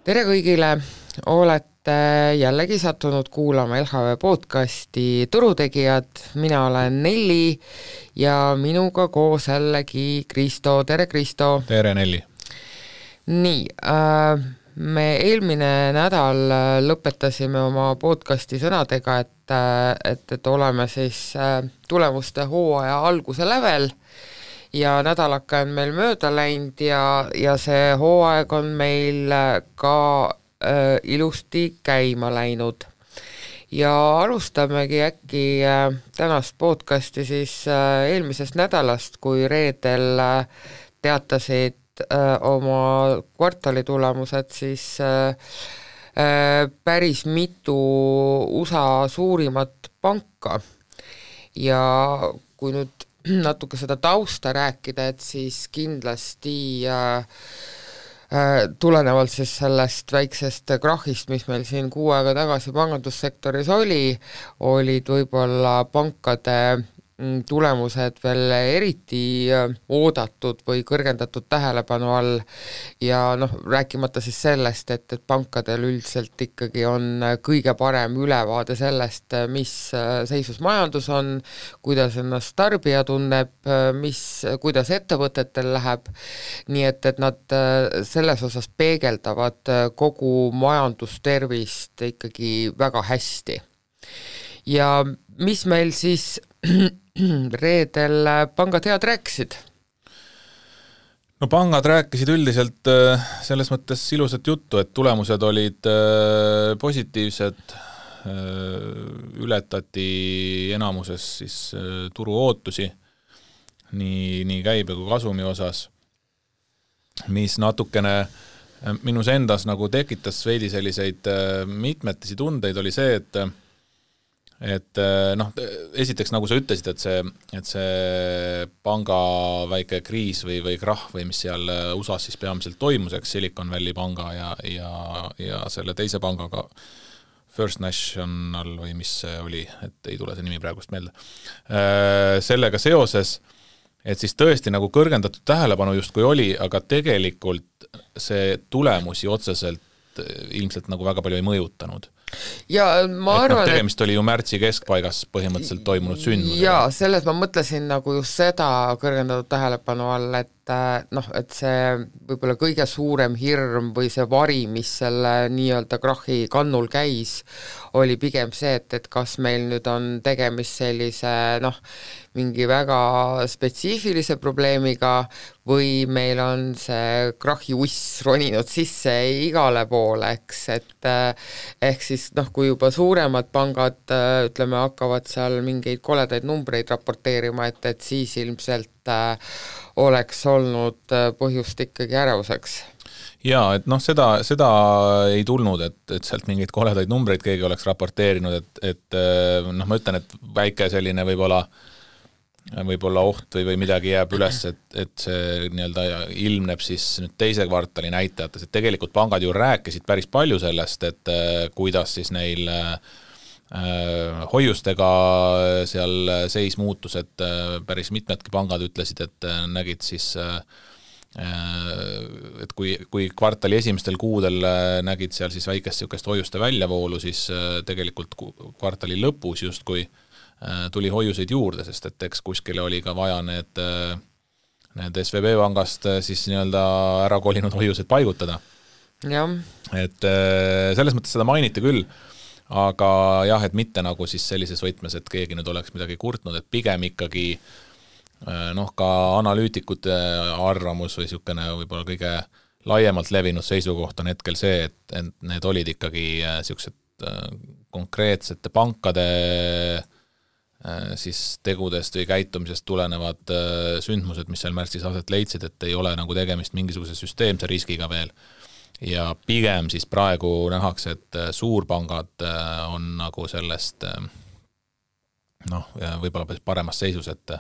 Tere kõigile, olete jällegi sattunud kuulama LHV podcasti Turutegijad, mina olen Nelli ja minuga koos jällegi Kristo, tere Kristo! Tere Nelli! Nii, me eelmine nädal lõpetasime oma podcasti sõnadega, et oleme siis tulemuste hooaja alguse lävel ja nädalaka on meil mööda läinud ja see hooaeg on meil ka ilusti käima läinud. Ja alustamegi äkki tänast podcasti siis eelmisest nädalast, kui reedel teatasid oma kvartali tulemused siis päris mitu USA suurimat panka. Ja kui nüüd natuke seda tausta rääkida, et siis kindlasti tulenevalt siis sellest väiksest krahhist, mis meil siin 6 aega tagasi pangandussektoris olid võib-olla pankade tulemused veel eriti oodatud või kõrgendatud tähelepanu all ja rääkimata siis sellest, et pankadel üldiselt ikkagi on kõige parem ülevaade sellest, mis seisus majandus on, kuidas ennast tarbija tunneb, kuidas ettevõtetel läheb, nii et nad selles osas peegeldavad kogu majandustervist ikkagi väga hästi. Ja mis meil siis reedel pangad head rääkisid? No pangad rääkisid üldiselt selles mõttes ilusat juttu, et tulemused olid positiivsed, ületati enamuses siis turu ootusi nii käibe kui kasumi osas, mis natukene minus endas nagu tekitas veidi selliseid mitmetisi tundeid, oli see, et esiteks nagu sa ütlesid, et see panga väike kriis või krahh või mis seal USAs siis peamiselt toimus, eks Silicon Valley panga ja selle teise pangaga First National või mis see oli, et ei tule see nimi praegust meelde, sellega seoses, et siis tõesti nagu kõrgendatud tähelepanu justkui oli, aga tegelikult see tulemusi otseselt ilmselt nagu väga palju ei mõjutanud. Ja ma arvan, tegemist oli ju märtsi keskpaigas põhimõtteliselt toimunud sündmus. Ja selles ma mõtlesin nagu just seda kõrgendatud tähelepanu all, et see võib-olla kõige suurem hirm või see vari, mis selle nii-öelda krahhi kannul käis, oli pigem see, et kas meil nüüd on tegemist sellise mingi väga spetsiifilise probleemiga või meil on see krahhi uss roninud sisse igale poole, eks, et ehk siis kui juba suuremad pangad ütleme, hakkavad seal mingeid koledaid numbreid raporteerima, et siis ilmselt oleks olnud põhjust ikkagi ärevuseks. Jaa, et seda ei tulnud, et sealt mingeid koledaid numbreid keegi oleks raporteerinud, et ma ütlen, et väike selline võib-olla oht või midagi jääb üles, et see nii-öelda ilmneb siis nüüd teise kvartali näitajates, et tegelikult pangad ju rääkisid päris palju sellest, et kuidas siis neil hoiustega seal seis muutus, et päris mitmedki pangad ütlesid, et nägid siis et kui kvartali esimestel kuudel nägid seal siis väikest niisugust hoiuste väljavoolu, siis tegelikult kvartali lõpus justkui tuli hoiuseid juurde, sest et eks kuskile oli ka vaja need SVB pangast siis nii-öelda ära kolinud hoiused paigutada. Ja. Et selles mõttes seda mainiti küll, aga jah, et mitte nagu siis sellises võtmes, et keegi nüüd oleks midagi kurtnud, et pigem ikkagi ka analüütikute arvamus või niisugune võib-olla kõige laiemalt levinud seisukoht on hetkel see, et need olid ikkagi niisugused konkreetsete pankade siis tegudest või käitumisest tulenevad sündmused, mis seal märtsis aset leidsid, et ei ole nagu tegemist mingisuguse süsteemse riskiga veel. Ja pigem siis praegu nähakse, et suurpangad on nagu sellest võib-olla paremas seisus, et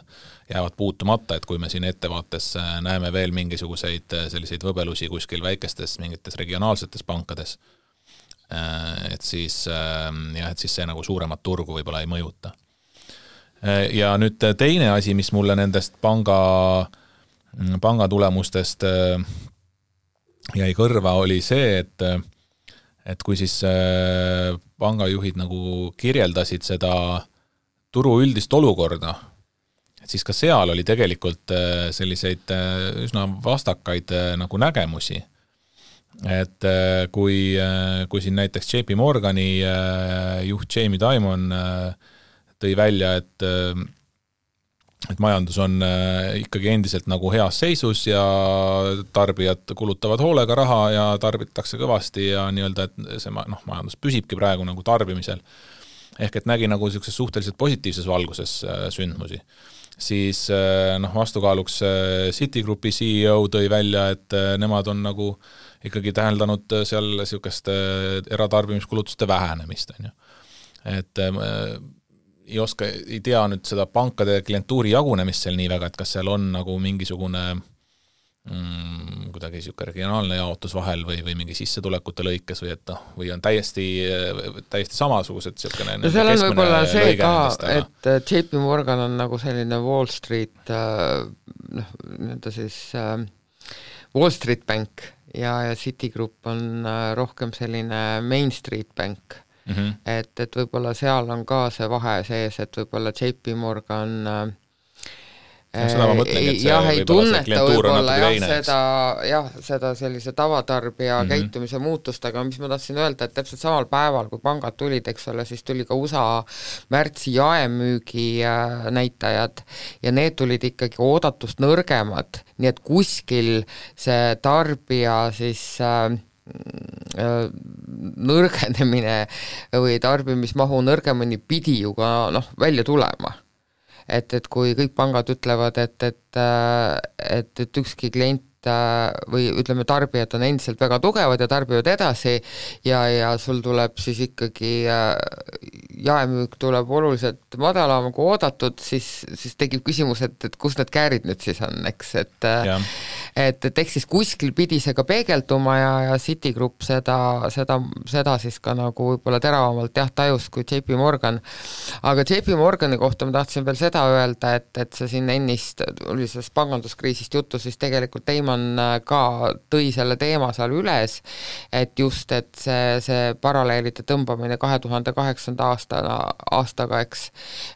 jäävad puutumata, et kui me siin ettevaates näeme veel mingisuguseid selliseid võbelusi kuskil väikestes mingites regionaalsetes pankades, et siis see nagu suuremat turgu võib-olla ei mõjuta. Ja nüüd teine asi, mis mulle nendest panga tulemustest jäi kõrva, oli see, et kui siis pangajuhid nagu kirjeldasid seda turu üldist olukorda, et siis ka seal oli tegelikult selliseid üsna vastakaid nagu nägemusi. Et kui siin näiteks JP Morgani juht Jamie Dimon tõi välja, et majandus on ikkagi endiselt nagu heas seisus ja tarbijad kulutavad hoolega raha ja tarbitakse kõvasti ja nii-öelda, et see majandus püsibki praegu nagu tarbimisel. Ehk et nägi nagu sellises suhteliselt positiivses valguses sündmusi. Siis vastukaaluks Citigroupi CEO tõi välja, et nemad on nagu ikkagi täheldanud seal sellisest eratarbimiskulutuste vähenemist. Et ei tea nüüd seda pankade klientuuri jagunemist seal nii väga, et kas seal on nagu mingisugune kuidagi siuke regionaalne jaotus vahel või mingi sissetulekute lõikes või on täiesti samasugused siukene no seal on võib-olla see ka, et JP Morgan on nagu selline Wall Street Wall Street Bank ja Citigroup on rohkem selline Main Street Bank. Et võib-olla seal on ka see vahe sees, et võib-olla JP Morgan seda ma mõtlengi, et see ei tunneta võib-olla seda sellise tavatarbija käitumise muutust, aga mis ma tahtsin öelda, et täpselt samal päeval, kui pangad tulid, eks ole, siis tuli ka USA märtsi jaemüügi näitajad ja need tulid ikkagi oodatust nõrgemad, nii et kuskil see tarbija siis nõrgenemine või tarbimismahu nõrgemini pidi ju ka välja tulema. Et kui kõik pangad ütlevad, et ükski klient või ütleme, tarbijad on endiselt väga tugevad ja tarbivad edasi ja sul tuleb siis ikkagi jaemüük tuleb oluliselt madalam kui oodatud, siis tekib küsimus, et kus need käärid nüüd siis on, eks, et eks siis kuskil pidi see ka peegelduma ja Citigroup seda siis ka nagu võib-olla teravamalt tajus kui JP Morgan. Aga JP Morgani kohta ma tahtsin veel seda öelda, et see siin ennist oli sellest panganduskriisist juttu, siis tegelikult Damon ka tõi selle teema seal üles, et just, et see paralleelide tõmbamine 2008. aastaga, eks,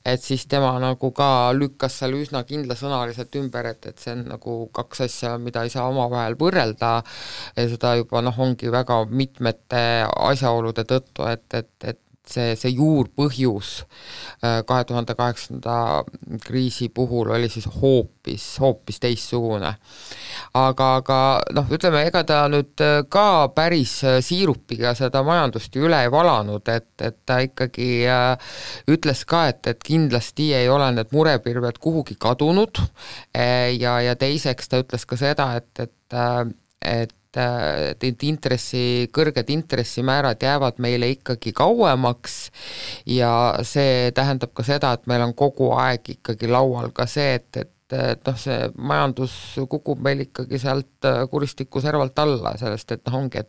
et siis tema nagu ka lükkas seal üsna kindlasõnaliselt ümber, et see on nagu kaks asja, mida ei saa omavahel võrrelda ja seda juba ongi väga mitmete asjaolude tõttu, et see juurpõhjus 2008. kriisi puhul oli siis hoopis teissugune. Aga ütleme, ega ta nüüd ka päris siirupiga seda majandust üle ei valanud, et ta ikkagi ütles ka, et kindlasti ei ole need murepirved kuhugi kadunud ja teiseks ta ütles ka seda, et kõrged intressimäärad jäävad meile ikkagi kauemaks ja see tähendab ka seda, et meil on kogu aeg ikkagi laual ka see, et see majandus kukub meil ikkagi sealt kuristiku servalt alla, sellest, et ongi,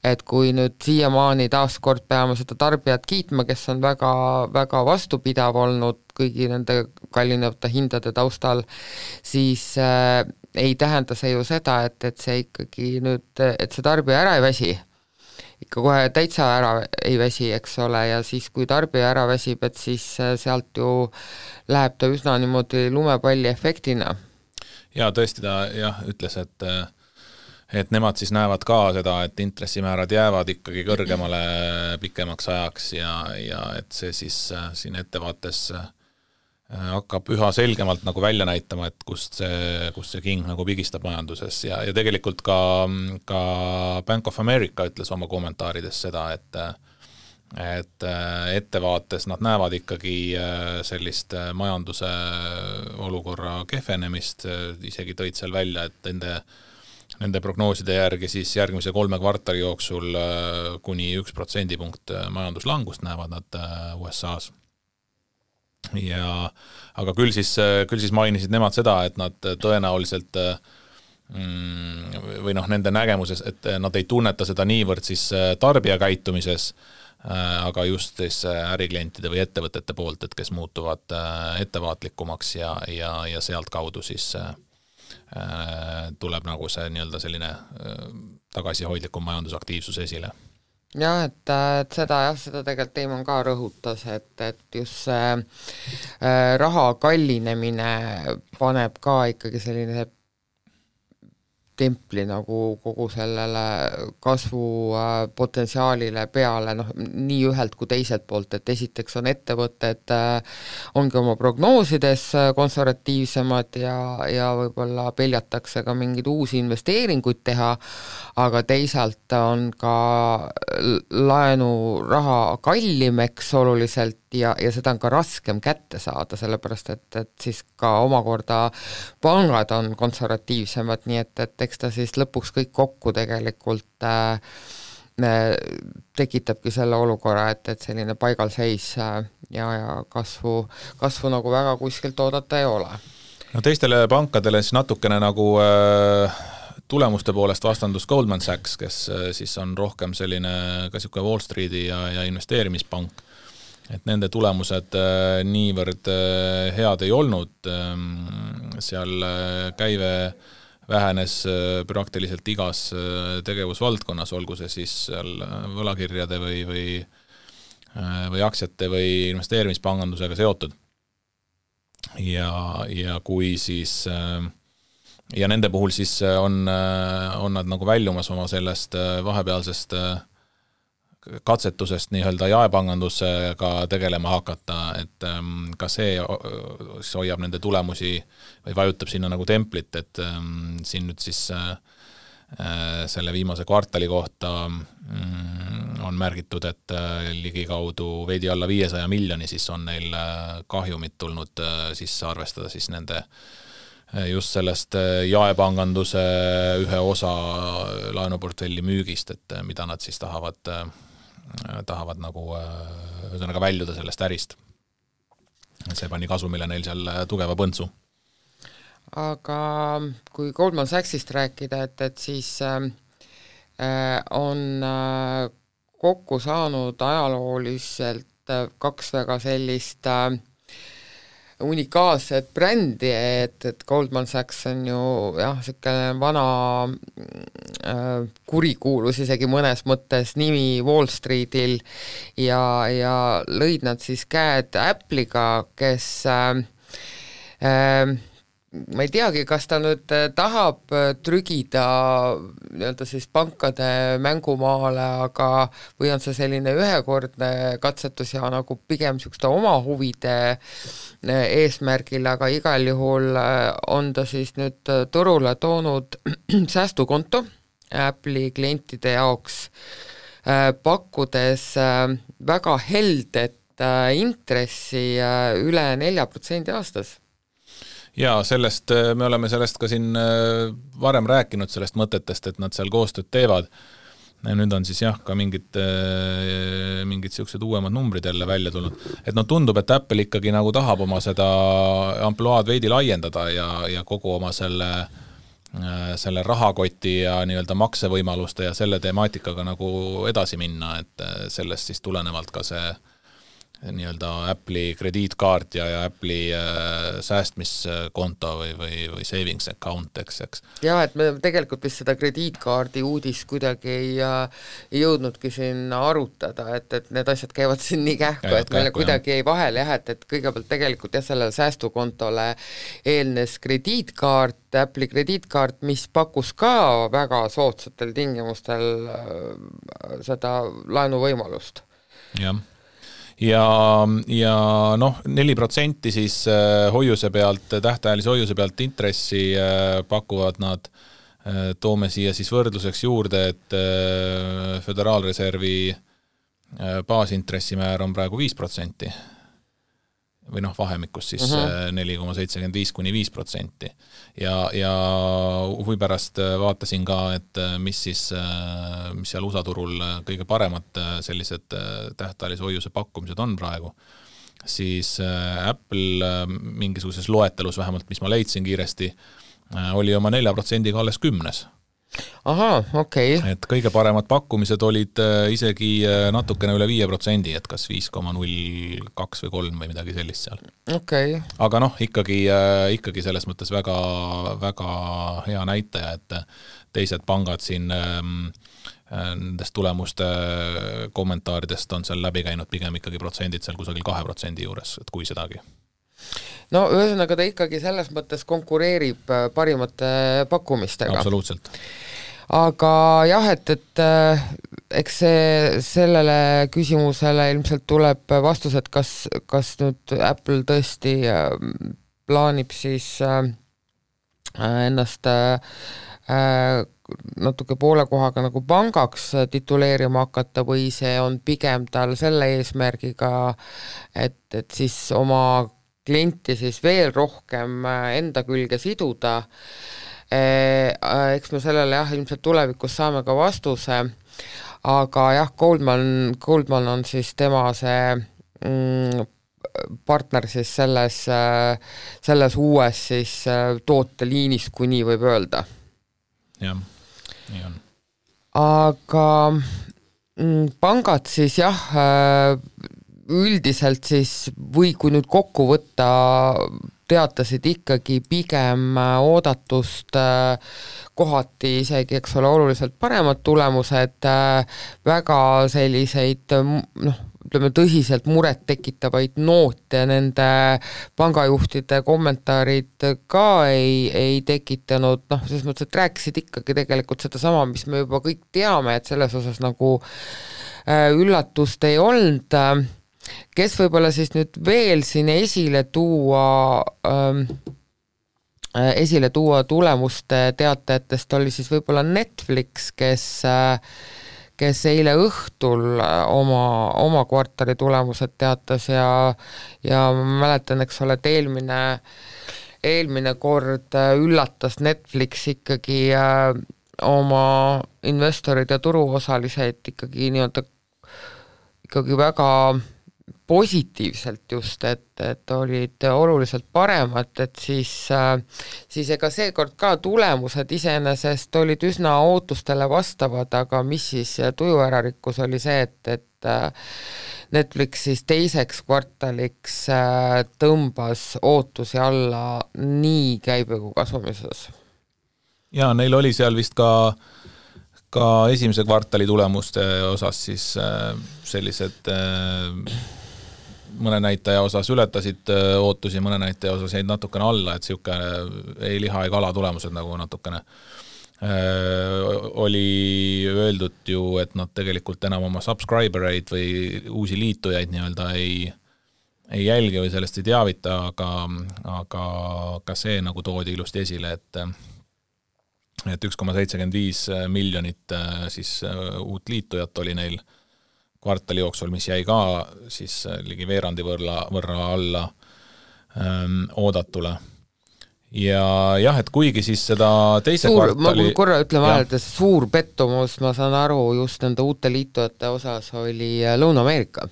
et kui nüüd siiamaani taaskord peame seda tarbijat kiitma, kes on väga, väga vastupidav olnud kõigi nende kallinevate hindade taustal, siis ei tähenda see ju seda, et see ikkagi nüüd, et see tarbija ära ei väsi, ikka kohe täitsa ära ei väsi, eks ole, ja siis kui tarbija ära väsib, et siis sealt ju läheb ta üsna niimoodi lumepalli efektina. Ja tõesti ta ütles, et nemad siis näevad ka seda, et intressimäärad jäävad ikkagi kõrgemale pikemaks ajaks ja et see siis siin ettevaates hakkab üha selgemalt nagu välja näitama, et kust see king nagu pigistab majanduses ja tegelikult ka Bank of America ütles oma kommentaarides seda, et ettevaates nad näevad ikkagi sellist majanduse olukorra kehvenemist, isegi tõid seal välja, et nende prognooside järgi siis järgmise 3 kvartali jooksul kuni 1% majanduslangust näevad nad USA-s. Aga küll siis mainisid nemad seda, et nad tõenäoliselt või nende nägemuses, et nad ei tunneta seda niivõrd siis tarbija käitumises, aga just siis äriklientide või ettevõtete poolt, et kes muutuvad ettevaatlikumaks ja sealt kaudu siis tuleb nagu see nii-öelda selline tagasihoidlikum majandusaktiivsus esile. jah, et seda tegelikult Teimon ka rõhutas, et just see raha kallinemine paneb ka ikkagi selline templi nagu kogu sellele kasvupotentsiaalile peale, nii ühelt kui teiselt poolt, et esiteks on ettevõtted ongi oma prognoosides konservatiivsemad ja võib-olla peljatakse ka mingeid uusi investeeringuid teha, aga teisalt on ka laenuraha kallim, eks, oluliselt ja seda on ka raskem kätte saada, sellepärast et siis ka omakorda pangad on konservatiivsemad, nii et eks ta siis lõpuks kõik kokku tegelikult tekitabki selle olukorra, et selline paigalseis ja kasvu nagu väga kuskilt oodata ei ole. No teistele pankadele siis natukene nagu tulemuste poolest vastandus Goldman Sachs, kes siis on rohkem selline ka siuke Wall Streeti ja investeerimispank, et nende tulemused niivõrd head ei olnud, seal käive vähenes praktiliselt igas tegevusvaldkonnas, olgu see siis seal võlakirjade või aktsiate või investeerimispangandusega seotud. Ja kui siis ja nende puhul siis on nad nagu väljumas oma sellest vahepealsest katsetusest nii-öelda jaepangandusega tegelema hakata, et ka see hoiab nende tulemusi või vajutab sinna nagu templit, et siin nüüd siis selle viimase kvartali kohta on märgitud, et ligikaudu veidi alla 500 miljoni siis on neil kahjumit tulnud sisse arvestada siis nende just sellest jaepanganduse ühe osa laenuportfelli müügist, et mida nad siis tahavad nagu ühesõnaga väljuda sellest ärist. See pani kasumile neil seal tugeva põntsu. Aga kui Goldman Sachsist rääkida, et siis on kokku saanud ajalooliselt kaks väga sellist unikaalset brändi, et Goldman Sachs on ju selline vana kurikuulus isegi mõnes mõttes nimi Wall Streetil ja lõid nad siis käed Apple'iga, kes ma ei teagi, kas ta nüüd tahab trügida nii-öelda siis pankade mängumaale, aga või on see selline ühekordne katsetus ja nagu pigem niisuguste oma huvide eesmärgil, aga igal juhul on ta siis nüüd turule toonud säästukonto Apple'i klientide jaoks, pakkudes väga heldet intressi üle 4% aastas. Ja sellest, me oleme sellest ka siin varem rääkinud sellest mõtetest, et nad seal koostööd teevad. Nüüd on siis ka mingid siuksed uuemad numbrid jälle välja tulnud. Et tundub, et Apple ikkagi nagu tahab oma seda ampluaad veidi laiendada ja kogu oma selle rahakoti ja nii-öelda maksevõimaluste ja selle temaatikaga nagu edasi minna, et sellest siis tulenevalt ka see nii-öelda Apple'i krediitkaart ja Apple'i säästmiskonto või savings account, eks. Ja, et me tegelikult vist seda krediitkaardi uudist kuidagi ei jõudnudki siin arutada, et need asjad käivad siin nii kähku, et meile kuidagi ei vahel et kõigepealt tegelikult sellele säästukontole eelnes krediitkaart, Apple'i krediitkaart, mis pakkus ka väga soodsatel tingimustel seda laenuvõimalust. Jah. Ja 4% siis hoiuse pealt, tähtajalise hoiuse pealt intressi pakuvad nad, toome siia siis võrdluseks juurde, et Föderaalreservi baasintressimäär on praegu 5%. Või vahemikus siis 4,75 kuni 5%. Ja huvi pärast vaatasin ka, et mis seal USA turul kõige paremad sellised tähtajalise hoiuse pakkumised on praegu, siis Apple mingisuguses loetelus vähemalt, mis ma leidsin kiiresti, oli oma 4%-ga alles 10. Aha, okei. Et kõige paremad pakkumised olid isegi natukene üle 5%, et kas 5,02 või 3 või midagi sellist seal. Okay. Aga ikkagi selles mõttes väga, väga hea näitaja, et teised pangad siin nendest tulemuste kommentaaridest on seal läbi käinud pigem ikkagi protsendid seal kusagil 2% juures, et kui sedagi. No ühesõnaga ta ikkagi selles mõttes konkureerib parimate pakkumistega. Absoluutselt. Aga jah, et eks sellele küsimusele ilmselt tuleb vastus, et kas nüüd Apple tõesti plaanib siis ennast natuke poole kohaga nagu pangaks tituleerima hakata või see on pigem tal selle eesmärgiga, et siis oma klienti siis veel rohkem enda külge siduda. Eks me sellele jah, ilmselt tulevikus saame ka vastuse, aga jah, Goldman on siis tema see partner siis selles uues siis tooteliinis, kui nii võib öelda. Jah, nii on. Aga pangad siis jah, üldiselt siis või kui nüüd kokku võtta, teatasid ikkagi pigem oodatust kohati isegi, eks ole, oluliselt paremad tulemused, väga selliseid ütleme tõsiselt muret tekitavaid noote nende pangajuhtide kommentaarid ka ei tekitanud, selles mõttes, et rääkisid ikkagi tegelikult seda sama, mis me juba kõik teame, et selles osas nagu üllatust ei olnud. Kes võib-olla siis nüüd veel siin esile tuua tulemuste teatajatest oli siis võib-olla Netflix, kes eile õhtul oma kvartali tulemused teatas ja ma mäletan, eks ole, et eelmine kord üllatas Netflix ikkagi oma investorid ja turuosalised ikkagi väga positiivselt just, et olid oluliselt paremad, et siis ega seekord ka tulemused iseenesest olid üsna ootustele vastavad, aga mis siis tuju ära rikkus oli see, et Netflix siis teiseks kvartaliks tõmbas ootusi alla nii käibe kui kasumises. Ja neil oli seal vist ka esimese kvartali tulemuste osas siis sellised mõne näitaja osas ületasid ootusi, mõne näitaja osas jäid natukene alla, et siuke ei liha ei kala tulemused nagu natukene oli öeldud ju, et nad tegelikult enam oma subscribereid või uusi liitujaid nii-öelda ei jälgi või sellest ei teavita, aga ka see nagu toodi ilusti esile, et 1,75 miljonit siis uut liitujat oli neil kvartali jooksul, mis jäi ka siis ligi veerandi võrra alla oodatule. Ja jah, et kuigi siis seda teise kvartali... Ma korra ütlen vahel, et suur pettumus, ma saan aru, just nende uute liitujate osas oli Lõuna-Ameerika.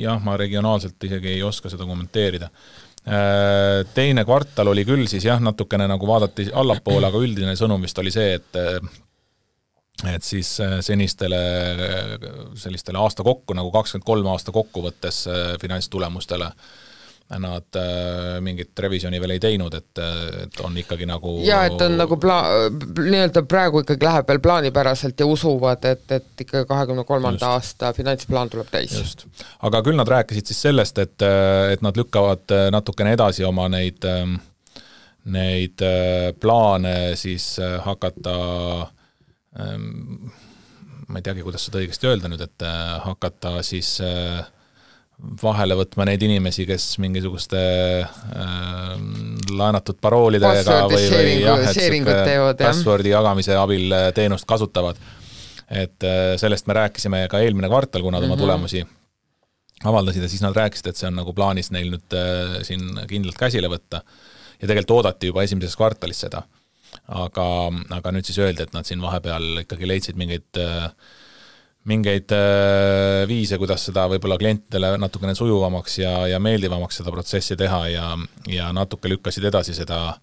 Jah, ma regionaalselt isegi ei oska seda kommenteerida. Teine kvartal oli küll siis jah, natukene nagu vaadati allapoole, aga üldine sõnum vist oli see, et siis senistele sellistele aasta kokku, nagu 23 aasta kokkuvõttes finantstulemustele nad mingit revisjoni veel ei teinud, et on ikkagi nagu... Ja, et on nagu nii-öelda praegu ikkagi läheb veel plaanipäraselt ja usuvad, et ikka 23. aasta finantsplaan tuleb täis. Just. Aga küll nad rääkisid siis sellest, et nad lükkavad natukene edasi oma neid plaane siis hakata ma ei teagi, kuidas seda õigesti öelda nüüd, et hakata siis vahele võtma neid inimesi, kes mingisuguste laenatud paroolidega või passwordi jagamise abil teenust kasutavad. Et sellest me rääkisime ka eelmine kvartal, kui nad oma tulemusi avaldasid ja siis nad rääkisid, et see on nagu plaanis neil nüüd siin kindlalt käsile võtta ja tegelikult oodati juba esimeses kvartalis seda. Aga nüüd siis öeldi, et nad siin vahepeal ikkagi leidsid mingeid viise, kuidas seda võib-olla klientidele natukene sujuvamaks ja meeldivamaks seda protsessi teha ja natuke lükkasid edasi seda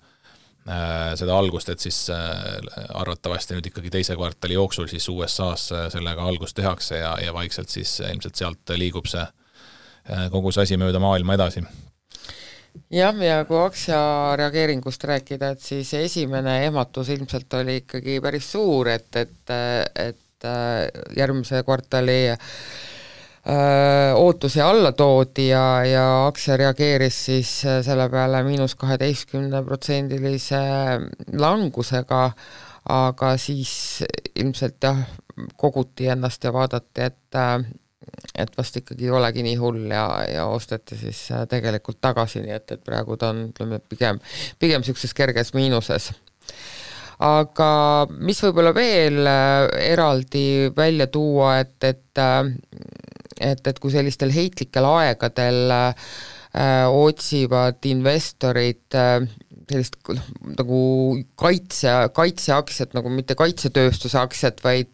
algust, et siis arvatavasti nüüd ikkagi teise kvartali jooksul siis USA's sellega algust tehakse ja vaikselt siis ilmselt sealt liigub see kogu see asi mööda maailma edasi. jah, ja kui aktsia reageeringust rääkida, et siis esimene ehmatus ilmselt oli ikkagi päris suur, et järgmise kvartali ootusi alla toodi ja aktsia reageeris siis selle peale -12% langusega, aga siis ilmselt jah, koguti ennast ja vaadati, et vast ikkagi ei olegi nii hull ja osteti siis tegelikult tagasi, nii et praegu ta on, ütleme, pigem niisuguses kerges miinuses. Aga mis võib-olla veel eraldi välja tuua, et kui sellistel heitlikel aegadel otsivad investorid sellist nagu kaitseaktsiat, nagu mitte kaitsetööstuse aktsiat, vaid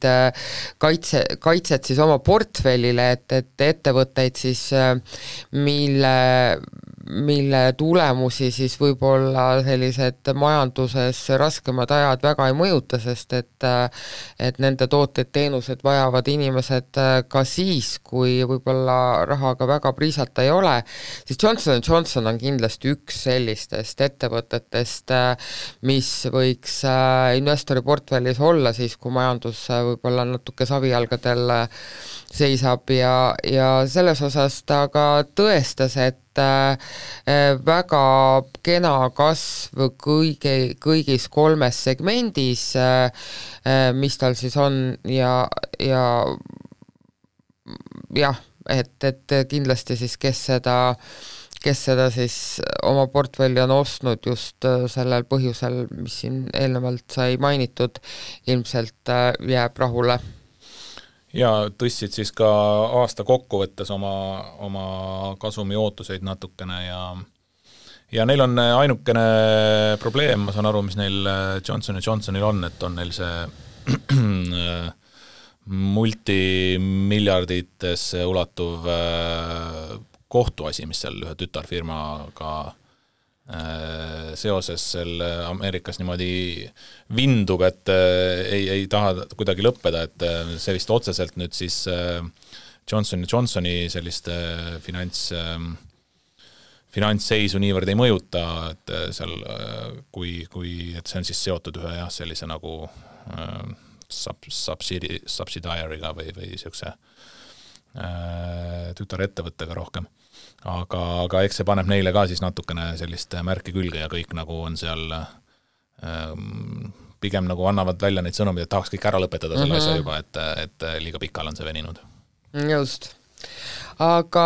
kaitset siis oma portfellile, et ettevõtteid siis, mille tulemusi siis võib-olla sellised majanduses raskemad ajad väga ei mõjuta, sest et nende tooted-teenused vajavad inimesed ka siis, kui võib-olla rahaga väga priisata ei ole, siis Johnson & Johnson on kindlasti üks sellistest ettevõtetest, mis võiks investori portfellis olla siis, kui majandus võib-olla natuke savijalgadel seisab ja selles osas ta ka tõestas, et väga kena kasv kõigis 3 segmendis, mis tal siis on ja jah, et kindlasti siis, kes seda siis oma portfelli on ostnud just sellel põhjusel, mis siin eelnevalt sai mainitud, ilmselt jääb rahule. Ja tõstsid siis ka aasta kokkuvõttes oma kasumi ootuseid natukene ja neil on ainukene probleem, ma saan aru, mis neil Johnson & Johnsonil on, et on neil see multimiljarditesse ulatuv kohtuasi, mis seal ühe tütarfirmaga seoses selle Ameerikas niimoodi vindub, et ei taha kuidagi lõppeda, et see vist otseselt nüüd siis Johnson & Johnsoni sellist finantsseisu niivõrd ei mõjuta, et seal kui et see on siis seotud ühe sellise nagu subsidiary'ga või niisuguse tütarettevõttega rohkem. Aga eks see paneb neile ka siis natukene sellist märki külge ja kõik nagu on seal pigem nagu annavad välja neid sõnumid, et tahaks kõik ära lõpetada selle asja juba, et liiga pikal on see veninud. Just. Aga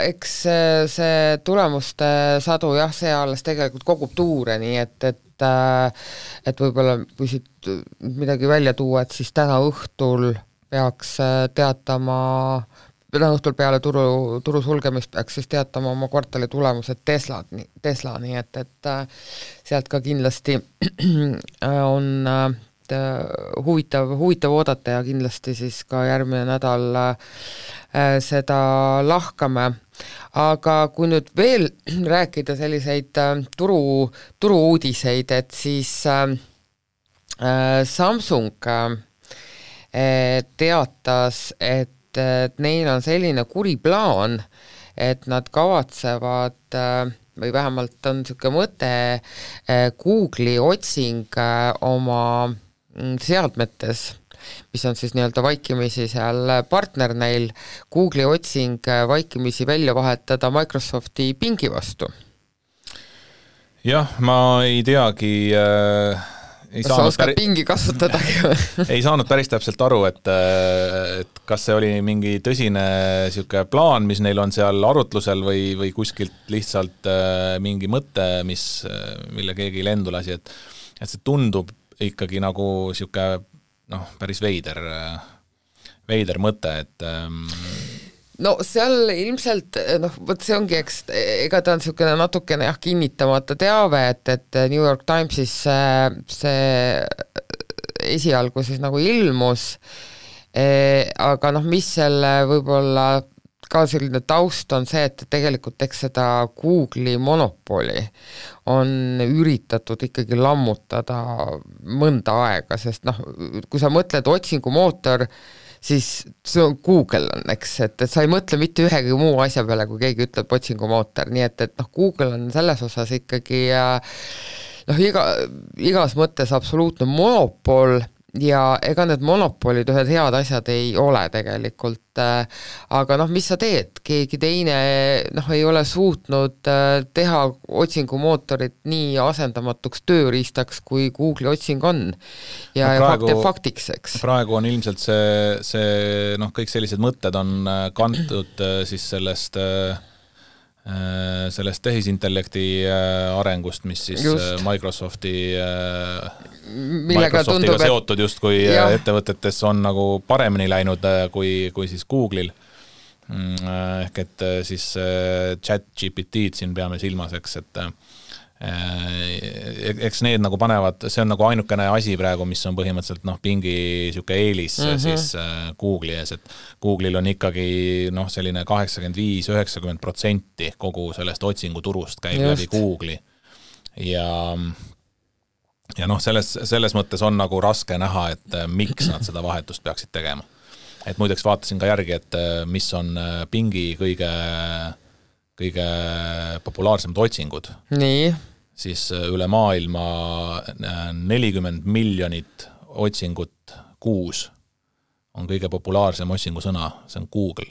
eks see tulemuste sadu jah, see alles tegelikult kogub tuure, nii et võib-olla kui siit midagi välja tuua, et siis täna õhtul peaks teatama peale turu sulgemist peaks siis teatama oma kvartali tulemused Tesla, nii et sealt ka kindlasti on huvitav oodata ja kindlasti siis ka järgmine nädal seda lahkame. Aga kui nüüd veel rääkida selliseid turu-uudiseid, et siis Samsung teatas, et neil on selline kuri plaan, et nad kavatsevad või vähemalt on niisugune mõte Google'i otsing oma seadmetes, mis on siis nii-öelda vaikimisi seal partner neil, Google'i otsing vaikimisi välja vahetada Microsofti Bingi vastu. Jah, ma ei teagi kas sa oskad Bingi kasutadagi? Ei saanud päris täpselt aru, et kas see oli mingi tõsine siuke plaan, mis neil on seal arutlusel või kuskilt lihtsalt mingi mõte, mille keegi lendu lasi, et see tundub ikkagi nagu siuke päris veider mõte, et no seal ilmselt, võt see ongi, ega ta on niisugune natukene kinnitamata teave, et New York Timesis see esialgu siis nagu ilmus, aga mis selle võib-olla ka selline taust on see, et tegelikult eks seda Google'i monopoli on üritatud ikkagi lammutada mõnda aega, sest kui sa mõtled otsingumootor, siis see on Google on, eks, et sa ei mõtle mitte ühegi muu asja peale, kui keegi ütleb otsingumootor, nii et noh, Google on selles osas ikkagi igas mõttes absoluutne monopol ja ega need monopolid ühed head asjad ei ole tegelikult, aga noh, mis sa teed, keegi teine ei ole suutnud teha otsingumootorit nii asendamatuks tööriistaks, kui Google'i otsing on ja praegu, faktiks, eks. Praegu on ilmselt see kõik sellised mõtted on kantud siis sellest tehisintellekti arengust, mis siis Microsoftiga tundub, seotud justkui ettevõtetes on nagu paremini läinud kui siis Google'il. Ehk et siis ChatGPT-d siin peame silmas, eks need nagu panevad, see on nagu ainukene asi praegu, mis on põhimõtteliselt pingi siuke eelis siis Google'i ees, et Google'il on ikkagi selline 85-90% kogu sellest otsinguturust käib läbi Google'i ja selles mõttes on nagu raske näha, et miks nad seda vahetust peaksid tegema. Et muideks vaatasin ka järgi, et mis on pingi kõige populaarsemad otsingud. Nii. Siis üle maailma 40 miljonit otsingut kuus on kõige populaarsem otsingusõna, see on Google.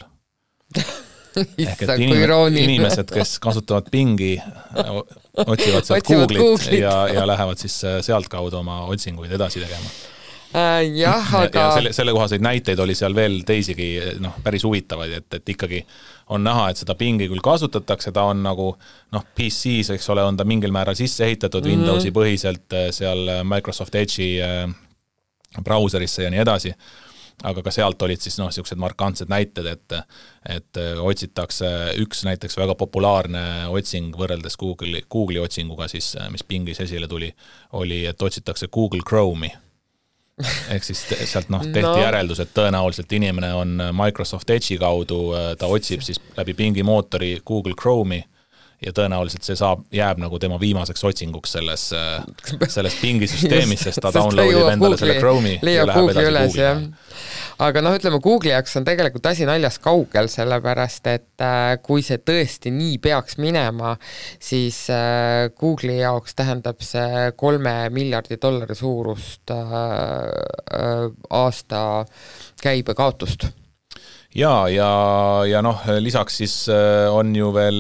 Ehk et inimesed, kes kasutavad pingi, otsivad sealt Google'it ja lähevad siis sealt kaudu oma otsinguid edasi tegema. Ja selle kohaseid näiteid oli seal veel teisigi päris huvitavaid, et ikkagi on näha, et seda pingi küll kasutatakse, ta on nagu PCs, eks ole, on ta mingil määral sisse ehitatud Windowsi põhiselt seal Microsoft Edge'i brauserisse ja nii edasi, aga ka sealt olid siis siuksed markantsed näited, et otsitakse üks näiteks väga populaarne otsing võrreldes Google'i otsinguga siis, mis pingis esile tuli, oli, et otsitakse Google Chrome'i. Ehk siis sealt tehti järeldus, et tõenäoliselt inimene on Microsoft Edge'i kaudu, ta otsib siis läbi pingi mootori Google Chrome'i ja tõenäoliselt see jääb nagu tema viimaseks otsinguks selles pingisüsteemis, sest ta downloadib endale selle Chrome'i ja läheb edasi Google'i. Aga ütleme, Google'i jaoks on tegelikult asi naljas kaugel, sellepärast, et kui see tõesti nii peaks minema, siis Google'i jaoks tähendab see $3 miljardi suurust aasta käibekaotust. Ja lisaks siis on ju veel,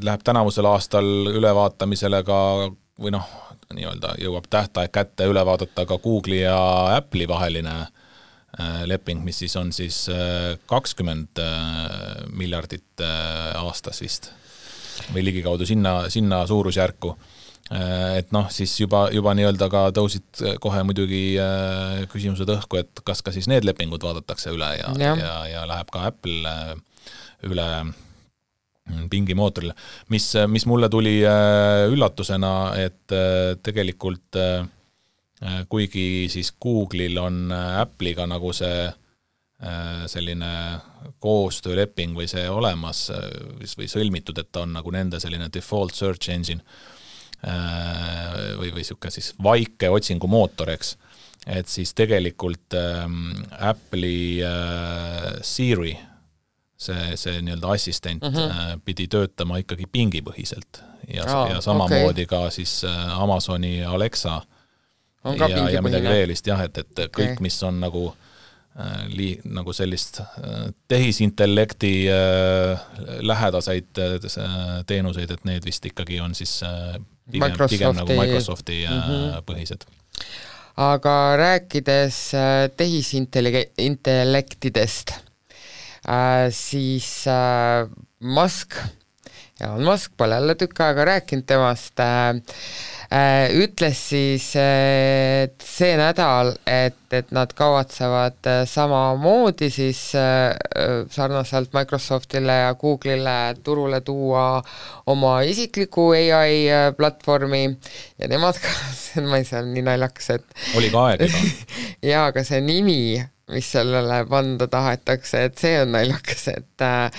läheb tänavusel aastal ülevaatamisele ka, või nii-öelda jõuab tähtaeg kätte üle vaadata ka Google'i ja Apple'i vaheline leping, mis siis on siis 20 miljardit aastas vist või ligikaudu sinna suurusjärku. Et siis juba nii-öelda ka tõusid kohe muidugi küsimused õhku, et kas ka siis need lepingud vaadatakse üle ja läheb ka Apple üle pingi mootorile. Mis mulle tuli üllatusena, et tegelikult kuigi siis Google'il on Apple'iga nagu see selline koostööleping või see olemas või sõlmitud, et ta on nagu nende selline default search engine või siuke siis vaike otsingumootor, eks. Et siis tegelikult Apple'i Siri, see nii-öelda assistent pidi töötama ikkagi pingipõhiselt ja samamoodi ka siis Amazoni Alexa ja midagi veelist, et kõik, mis on nagu sellist tehisintellekti lähedaseid teenuseid, et need vist ikkagi on siis pigem nagu Microsofti põhised. Aga rääkides tehisintellektidest, siis Elon Musk pole jälle tükk aega rääkinud temast, ütles siis see nädal, et nad kavatsevad samamoodi siis sarnaselt Microsoftile ja Google'ile turule tuua oma isikliku AI platvormi ja nemad ka, ma ei saa nii naljakas, et oli ka aeg juba. ja, aga see nimi, mis sellele panda tahetakse, et see on naljakas, et ta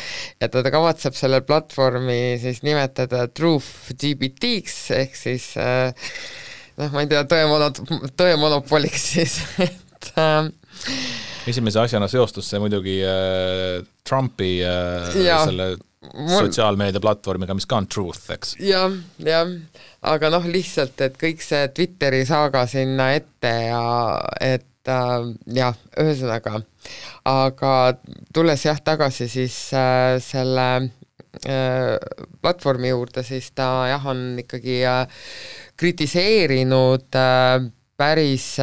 kavatseb selle platvormi siis nimetada Truth GPT-ks, ehk siis ma ei tea, tõemonopoliks siis, Esimese asjana seostus see muidugi Trumpi selle sotsiaalmeedia platvormiga, mis ka on Truth, eks? Jah, aga lihtsalt, et kõik see Twitteri saaga sinna ette ja et ühesõnaga, aga tulles tagasi siis selle platvormi juurde, siis ta on ikkagi kritiseerinud päris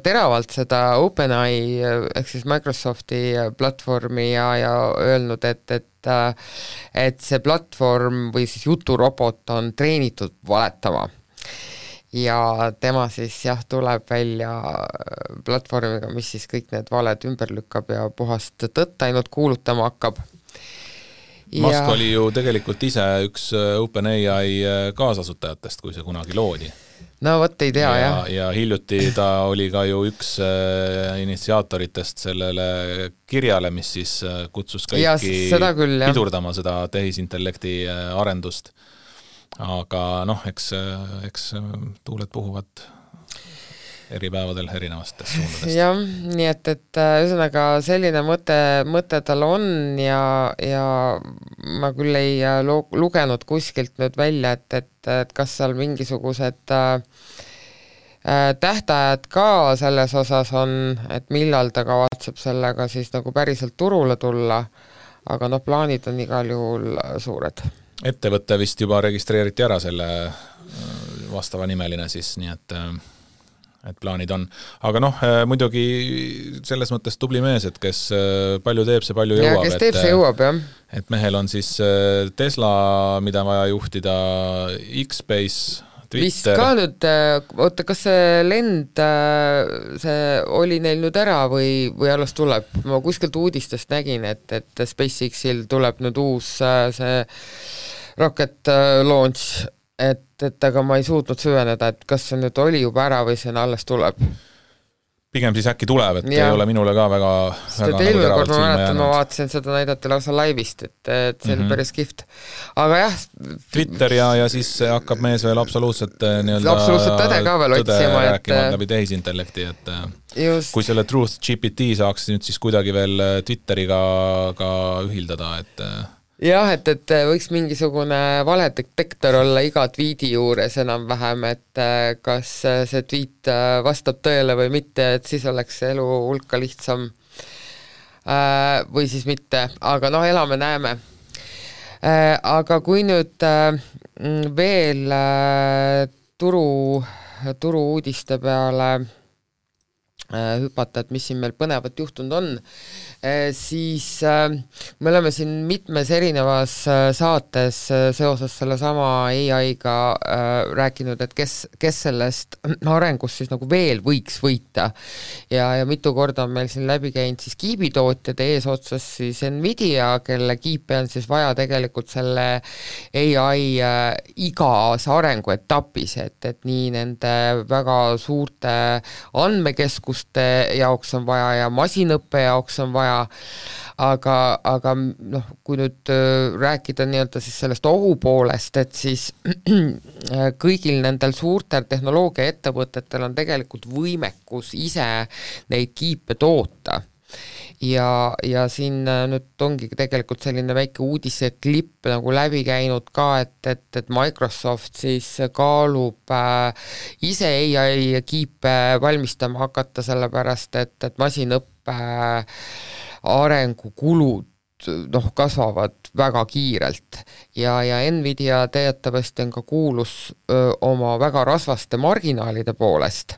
teravalt seda OpenAI ehk siis Microsofti platvormi ja öelnud, et see platvorm või siis juturobot on treenitud valetama. Ja tema siis tuleb välja platvormiga, mis siis kõik need valed ümber lükkab ja puhast tõtt ainult kuulutama hakkab. Musk oli ju tegelikult ise üks OpenAI kaasasutajatest, kui see kunagi loodi. No võt ei tea, jah. Ja hiljuti ta oli ka ju üks initsiaatoritest sellele kirjale, mis siis kutsus kõiki pidurdama seda tehisintellekti arendust. Aga eks tuuled puhuvad eri päevadel erinevastest suundadest. Jah, nii et ühesõnaga selline mõte tal on ja ma küll ei lugenud kuskilt nüüd välja, et kas seal mingisugused tähtajad ka selles osas on, et millal ta kavatseb sellega siis nagu päriselt turule tulla, aga plaanid on igal juhul suured. Ettevõtte vist juba registreeriti ära selle vastava nimeline siis, nii et plaanid on. Aga muidugi selles mõttes tubli mees, et kes palju teeb, see palju jõuab. Ja kes teeb, see jõuab, jah. Et mehel on siis Tesla, mida vaja juhtida, X-Base, Twitter. Vist ka nüüd, oota, kas see lend, see oli neil nüüd ära või alles tuleb? Ma kuskilt uudistest nägin, et SpaceX-il tuleb nüüd uus see rocket launch, et aga ma ei suutnud süveneda, et kas see nüüd oli juba ära või see alles tuleb. Pigem siis äkki tuleb, et ei ole minule ka väga eelmine kord ma mäletan, ma vaatasin seda näidati lausa laivist, et see oli päris kihvt. Aga jah. Twitter ja siis hakkab mees veel absoluutselt tõde ka veel otsima. Rääkima läbi tehisintellekti, et kui selle Truth GPT saaks nüüd siis kuidagi veel Twitteriga ka ühildada, et jah, et võiks mingisugune valedetektor olla iga tweeti juures enam-vähem, et kas see tweet vastab tõele või mitte, et siis oleks elu hulka lihtsam või siis mitte, aga elame-näeme. Aga kui nüüd veel turu uudiste peale hüpata, et mis siin meil põnevat juhtunud on, siis me oleme siin mitmes erinevas saates seoses selle sama AI-ga rääkinud, et kes sellest arengust siis nagu veel võiks võita ja mitu korda on meil siin läbi käinud siis kiibitootjad eesotsas siis Nvidia, kelle kiipe on siis vaja tegelikult selle AI igas arenguetapis, et nii nende väga suurte andmekeskuste jaoks on vaja ja masinõppe jaoks on vaja, aga kui nüüd rääkida nii-öelda siis sellest ohu poolest, et siis kõigil nendel suurtel tehnoloogiaettevõtetel on tegelikult võimekus ise neid kiipe toota. Ja siin nüüd ongi tegelikult selline väike uudise klipp nagu läbi käinud ka, et Microsoft siis kaalub ise AI kiipe valmistama hakata, sellepärast et masinõppe arengukulud kasvavad väga kiirelt ja Nvidia teatavasti on ka kuulus oma väga rasvaste marginaalide poolest.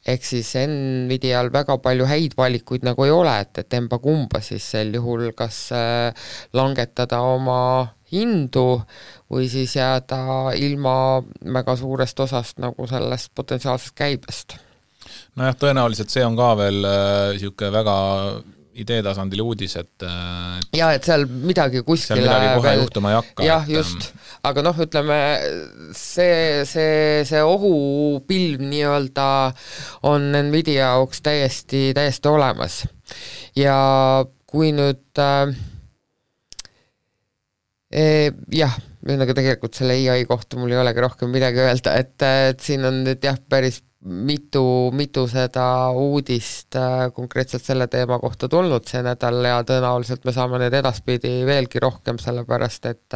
Ehk siis Nvidial väga palju häid valikuid nagu ei ole, et emba kumba siis sel juhul kas langetada oma hindu või siis jääda ilma väga suurest osast nagu sellest potentsiaalsest käibest. Nojah, tõenäoliselt see on ka veel siuke väga ideetasandil uudis, et et seal midagi kuskile seal midagi kohe juhtuma ei hakka. Jah, just. Aga ütleme, see ohupilv nii-öelda on Nvidia jaoks täiesti olemas. Ja kui nüüd ühesõnaga tegelikult selle AI kohta mul ei olegi rohkem midagi öelda, et siin on nüüd päris mitu seda uudist konkreetselt selle teema kohta tulnud see nädal ja tõenäoliselt me saame need edaspidi veelgi rohkem, sellepärast et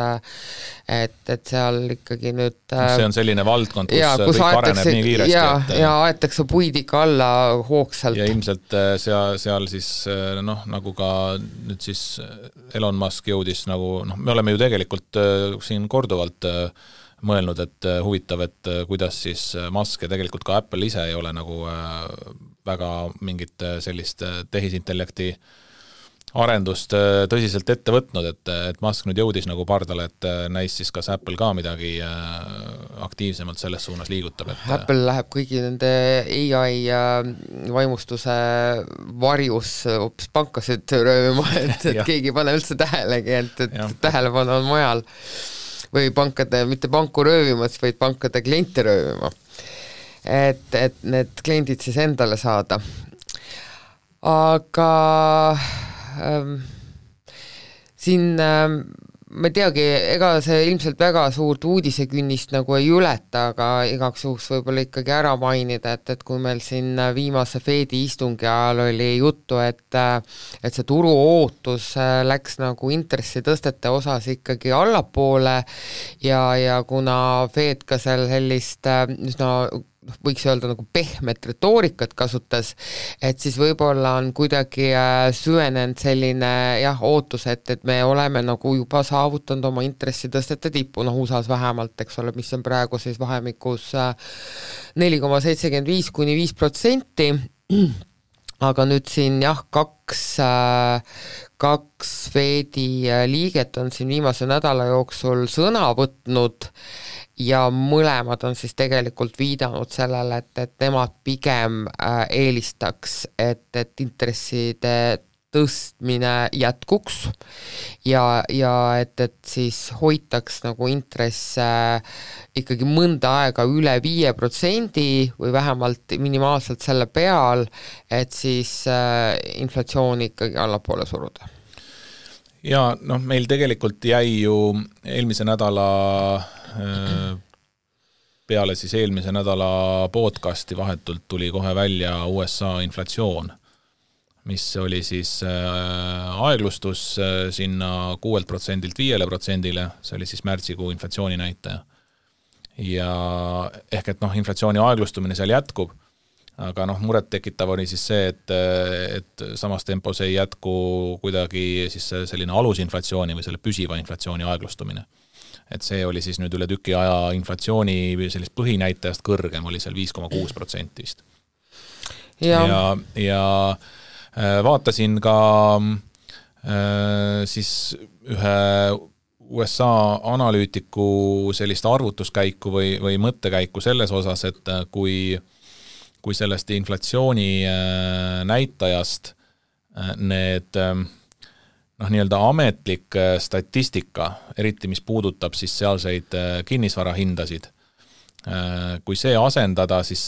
seal ikkagi nüüd see on selline valdkond, kus kõik areneb nii kiiresti. Ja aetakse puid ikka alla hoogsalt. Ja ilmselt seal siis nagu ka nüüd siis Elon Musk jõudis nagu, me oleme ju tegelikult siin korduvalt mõelnud, et huvitav, et kuidas siis Musk ja tegelikult ka Apple ise ei ole nagu väga mingit sellist tehisintellekti arendust tõsiselt ette võtnud, et Musk nüüd jõudis nagu pardale, et näis siis kas Apple ka midagi aktiivsemalt selles suunas liigutab. Apple läheb kõigi nende AI vaimustuse varjus hoopis pankasid röövima, et keegi ei pane üldse tähelegi, et tähelepanu on mujal. Või mitte panku röövimas, vaid pankade kliente röövima. Et need kliendid siis endale saada. Aga siin ma teagi, ega see ilmselt väga suurt uudisekünnist nagu ei ületa, aga igaks juhuks võib-olla ikkagi ära mainida, et kui meil siin viimase Fedi istungi ajal oli juttu, et see turu ootus läks nagu intressitõstete osas ikkagi allapoole ja kuna Fed ka seal sellist võiks öelda nagu pehmet retoorikat kasutas, et siis võib-olla on kuidagi süvenenud selline ootus, et me oleme nagu juba saavutanud oma intressitõstete tippu, USA-s vähemalt, eks ole, mis on praegu siis vahemikus 4,75 kuni 5%, aga nüüd siin kaks Fedi liiget on siin viimase nädala jooksul sõna võtnud ja mõlemad on siis tegelikult viidanud sellele, et nemad pigem eelistaks, et intresside tõstmine jätkuks ja et siis hoitaks nagu intresse ikkagi mõnda aega üle 5% või vähemalt minimaalselt selle peal, et siis inflatsiooni ikkagi allapoole suruda. Ja meil tegelikult jäi ju eelmise nädala peale siis eelmise nädala podcasti vahetult tuli kohe välja USA inflatsioon, mis oli siis aeglustus sinna 6%-lt 5%-le, see oli siis märtsikuu inflatsiooni näitaja. Ja ehk et inflatsiooni aeglustumine seal jätkub, aga muret tekitav oli siis see, et samas tempos ei jätku kuidagi siis selline alusinflatsiooni või selle püsiva inflatsiooni aeglustumine. Et see oli siis nüüd üle tüki aja inflatsiooni sellist põhinäitajast kõrgem, oli seal 5,6% vist. Ja vaatasin ka siis ühe USA analüütiku sellist arvutuskäiku või mõttekäiku selles osas, et kui sellest inflatsiooni näitajast need nii-öelda ametlik statistika, eriti mis puudutab siis sealseid kinnisvarahindasid, kui see asendada siis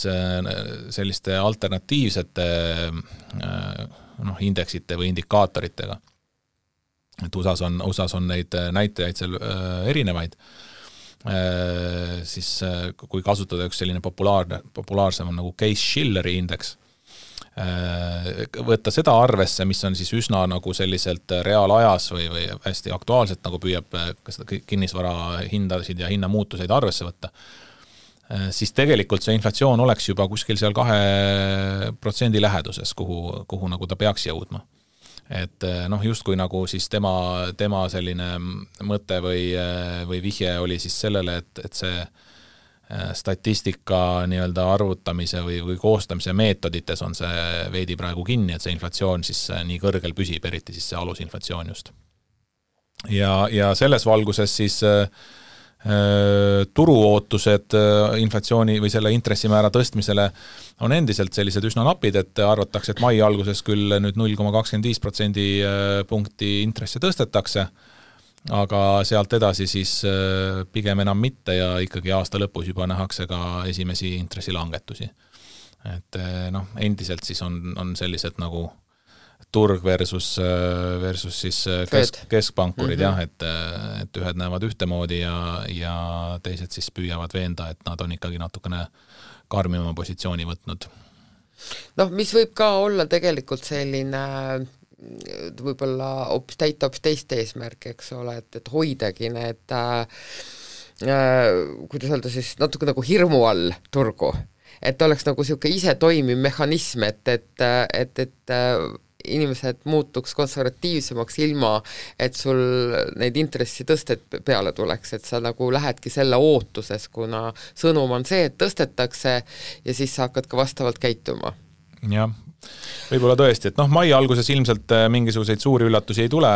selliste alternatiivsete indeksite või indikaatoritega, et USAs on neid näitajaid seal erinevaid, siis kui kasutada üks selline populaarsem on nagu Case-Shilleri indeks, võtta seda arvesse, mis on siis üsna nagu selliselt reaalajas või hästi aktuaalselt nagu püüab seda kinnisvara hindasid ja hinnamuutuseid arvesse võtta, siis tegelikult see inflatsioon oleks juba kuskil seal 2% läheduses, kuhu nagu ta peaks jõudma. Et justkui nagu siis tema selline mõte või vihje oli siis sellele, et see statistika nii-öelda arvutamise või koostamise meetodites on see veidi praegu kinni, et see inflatsioon siis nii kõrgel püsib, eriti siis see alusinflatsioon just. Ja selles valguses siis turuootused inflatsiooni või selle intressimäära tõstmisele on endiselt sellised üsna napid, et arvatakse, et mai alguses küll nüüd 0,25% punkti intresse tõstetakse, aga sealt edasi siis pigem enam mitte ja ikkagi aasta lõpus juba nähakse ka esimesi intressilangetusi. Et endiselt siis on sellised nagu turg versus siis keskpankurid jah, et ühed näevad ühtemoodi ja teised siis püüavad veenda, et nad on ikkagi natukene karmima positsiooni võtnud. Noh, mis võib ka olla tegelikult selline võib-olla täita hoopis teist eesmärki, eks ole, et hoidagi need kuidas öelda siis natuke nagu hirmu all turgu, et oleks nagu niisugune ise toimiv mehhanism, et inimesed muutuks konservatiivsemaks ilma, et sul neid intressitõsted peale tuleks, et sa nagu lähedki selle ootuses, kuna sõnum on see, et tõstetakse ja siis sa hakkad ka vastavalt käituma. Jah, võib-olla tõesti, et mai alguses ilmselt mingisuguseid suuri üllatusi ei tule,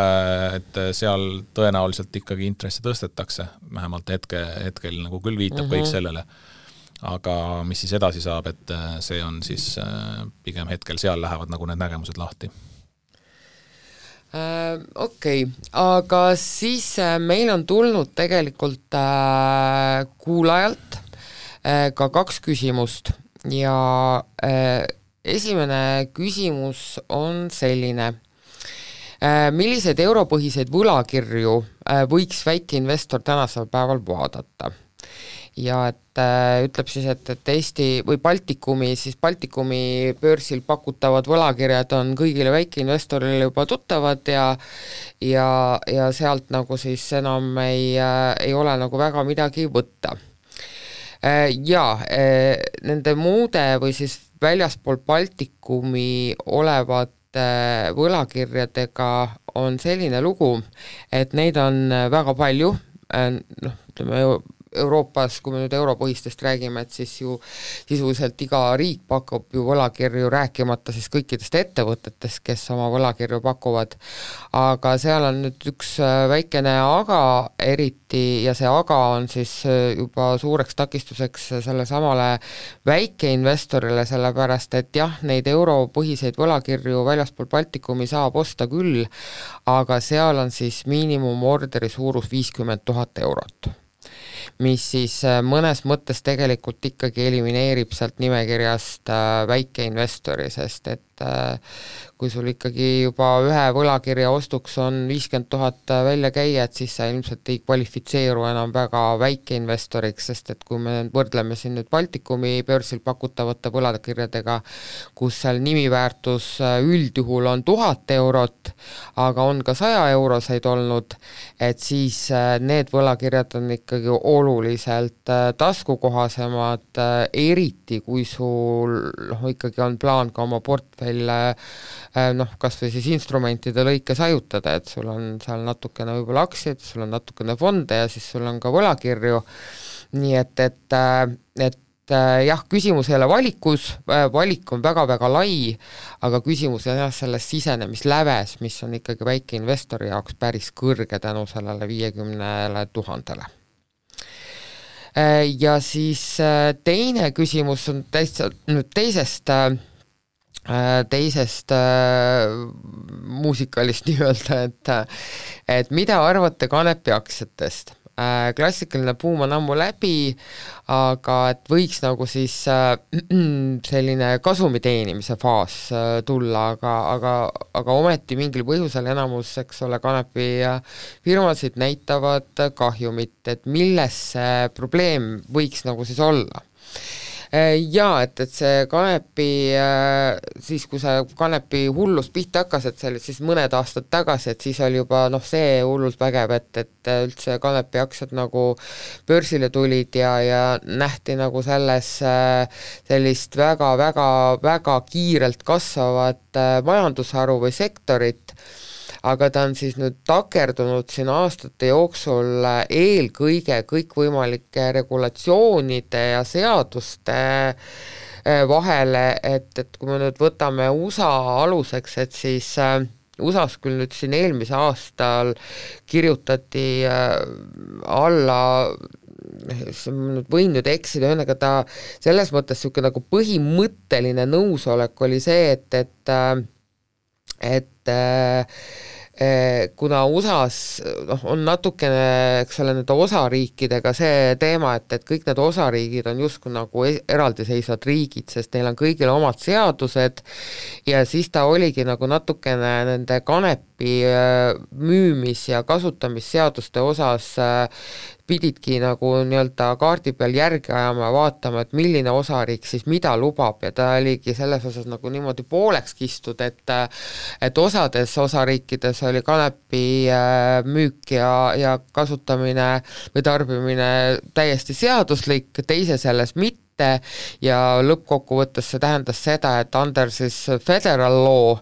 et seal tõenäoliselt ikkagi intressi tõstetakse, vähemalt hetkel nagu küll viitab kõik sellele. Aga mis siis edasi saab, et see on siis pigem hetkel seal lähevad nagu need nägemused lahti. Okei, aga siis meil on tulnud tegelikult kuulajalt ka 2 küsimust ja esimene küsimus on selline. Milliseid europõhiseid võlakirju võiks väikeinvestor tänasel päeval vaadata? Ja et ütleb siis, et Eesti või Baltikumi börsil pakutavad võlakirjad on kõigile väikeinvestorile juba tuttavad ja sealt nagu siis enam ei ole nagu väga midagi võtta. Ja nende muude või siis väljaspool Baltikumi olevate võlakirjadega on selline lugu, et neid on väga palju, ütleme Euroopas, kui me nüüd europõhistest räägime, et siis ju sisuliselt iga riik pakub ju võlakirju, rääkimata siis kõikidest ettevõtetest, kes oma võlakirju pakuvad, aga seal on nüüd üks väikene aga eriti ja see aga on siis juba suureks takistuseks selle samale väikeinvestorile, sellepärast et jah, neid europõhiseid võlakirju väljaspool Baltikumi saab osta küll, aga seal on siis miinimumorderi suurus 50 000 eurot. Mis siis mõnes mõttes tegelikult ikkagi elimineerib sealt nimekirjast väikeinvestori, sest et kui sul ikkagi juba ühe võlakirja ostuks on 50 000 välja käia, et siis sa ilmselt ei kvalifitseeru enam väga väikeinvestoriks, sest et kui me võrdleme siin nüüd Baltikumi börsil pakutavate võlakirjadega, kus seal nimiväärtus üldjuhul on 1000 eurot, aga on ka 100 euroseid olnud, et siis need võlakirjad on ikkagi oluliselt taskukohasemad, eriti kui sul ikkagi on plaan ka oma portfell kas või siis instrumentide lõikes ajutada, et sul on seal natukene võib-olla aktsiaid, sul on natukene fonde ja siis sul on ka võlakirju, nii et jah, küsimus ei ole valikus, valik on väga-väga lai, aga küsimus on jah selles sisenemisläves, mis on ikkagi väikeinvestori jaoks päris kõrge tänu sellele 50 000. Ja siis teine küsimus on teisest muusikalist nii-öelda, et mida arvate kanepi aktsiatest? Klassikaline buum on ammu läbi, aga et võiks nagu siis selline kasumi teenimise faas tulla, aga ometi mingil põhjusel enamus, eks ole, kanepi firmasid näitavad kahjumit, et milles see probleem võiks nagu siis olla? Jaa, et see kanepi, siis kui see kanepi hullus pihta hakkas, et see oli siis mõned aastad tagasi, et siis oli juba see hullult vägev, et üldse kanepi aktsiad nagu börsile tulid ja nähti nagu selles sellist väga kiirelt kasvavat majandusharu või sektorit, aga ta on siis nüüd takerdunud siin aastate jooksul eelkõige kõikvõimalike regulatsioonide ja seaduste vahele, et kui me nüüd võtame USA aluseks, et siis USA-s küll nüüd siin eelmise aastal kirjutati alla, nüüd võin nüüd eksida, ühesõnaga ta selles mõttes niisugune nagu põhimõtteline nõusolek oli see, kuna USAs on natukene, eks ole, nende osariikidega see teema, et kõik need osariigid on justkui nagu eraldiseisvad riigid, sest neil on kõigil omad seadused ja siis ta oligi nagu natukene nende kanepi müümis- ja kasutamisseaduste osas pididki nagu nii-öelda kaardi peal järgi ajama ja vaatama, et milline osariik siis mida lubab ja ta oligi selles osas nagu niimoodi pooleks kistud, et osades osariikides oli kanepi müük ja kasutamine või tarbimine täiesti seaduslik, teises jäles mitte ja lõppkokkuvõttes see tähendas seda, et under siis federal law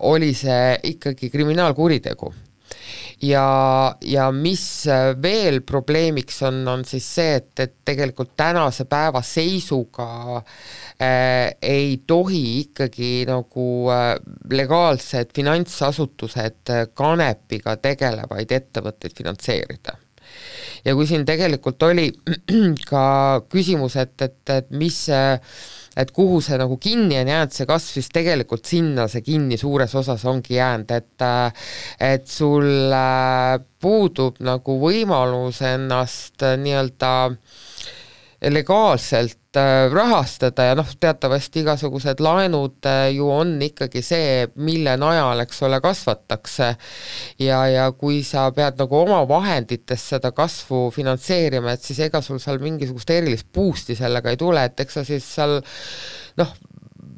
oli see ikkagi kriminaalkuritegu. Ja mis veel probleemiks on siis see, et tegelikult tänase päeva seisuga ei tohi ikkagi nagu legaalsed finantsasutused kanepiga tegelevaid ettevõtteid finantseerida. Ja kui siin tegelikult oli ka küsimus, et mis et kuhu see nagu kinni on jäänud, see kasv, siis tegelikult sinna see kinni suures osas ongi jäänud, et sul puudub nagu võimalus ennast nii-öelda legaalselt rahastada ja teatavasti igasugused laenud ju on ikkagi see, mille najal, eks ole, kasvatakse ja kui sa pead nagu oma vahendites seda kasvu finantseerima, et siis ega sul seal mingisugust erilist boost'i sellega ei tule, et eks sa siis seal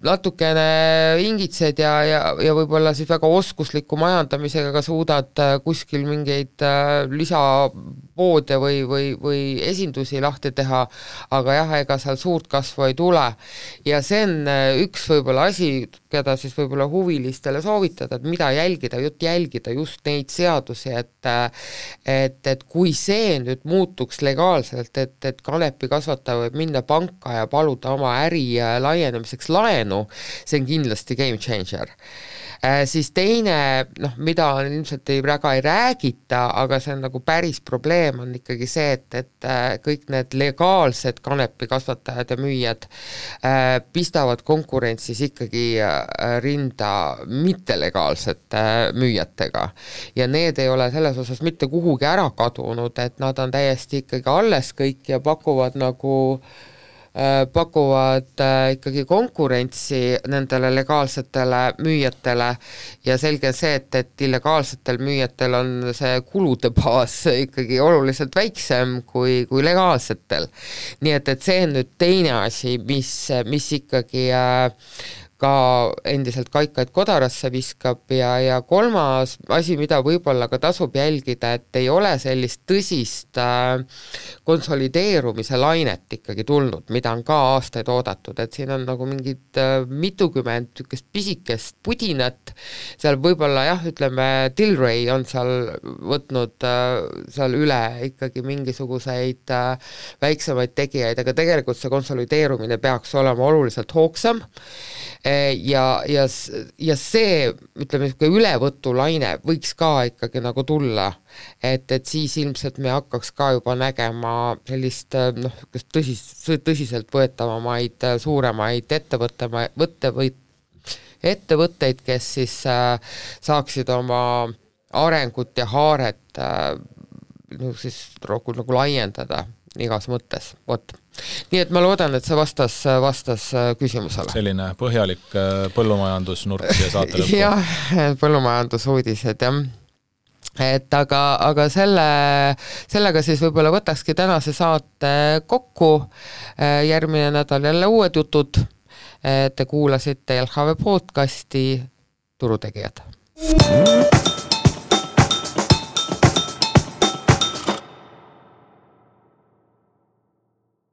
natukene ingitsed ja võib-olla siis väga oskusliku majandamisega ka suudad kuskil mingeid lisapoode või esindusi lahti teha, aga jah, ega seal suurt kasvu ei tule. Ja see on üks võib-olla asi, keda siis võib-olla huvilistele soovitada, et mida jälgida just neid seadusi, et kui see nüüd muutuks legaalselt, et kanepi kasvataja võib minna panka ja paluda oma äri laienemiseks laenu, see on kindlasti game changer. Siis teine, mida ilmselt väga ei räägita, aga see on nagu päris probleem, on ikkagi see, et kõik need legaalsed kanepi kasvatajad ja müüjad pistavad konkurentsis ikkagi rinda mittelegaalsete müüjatega. Ja need ei ole selles osas mitte kuhugi ära kadunud, et nad on täiesti ikkagi alles kõik ja pakuvad ikkagi konkurentsi nendele legaalsetele müüjatele ja selge on see, et illegaalsetel müüjatel on see kulude baas ikkagi oluliselt väiksem kui legaalsetel. Nii et see on nüüd teine asi, mis ikkagi ka endiselt kaikaid kodarasse viskab ja kolmas asi, mida võib-olla ka tasub jälgida, et ei ole sellist tõsist konsolideerumise lainet ikkagi tulnud, mida on ka aastaid oodatud, et siin on nagu mingid mitukümmend pisikest pudinat, seal võib-olla jah, ütleme, Tilray on seal võtnud seal üle ikkagi mingisuguseid väiksemaid tegijaid, aga tegelikult see konsolideerumine peaks olema oluliselt hoogsam ja see, ütleme, ülevõtulaine võiks ka ikkagi nagu tulla, et siis ilmselt me hakkaks ka juba nägema sellist tõsiselt võetavamaid suuremaid ettevõtteid, kes siis saaksid oma arengut ja haaret siis nagu laiendada igas mõttes, Nii et ma loodan, et see vastas küsimusele. Selline põhjalik põllumajandusnurk ja saate lõppu. Jah, põllumajandusuudised, jah. Et aga sellega siis võib-olla võtakski tänase saate kokku, järgmine nädal jälle uued jutud, te kuulasite LHV podcasti Turutegijad.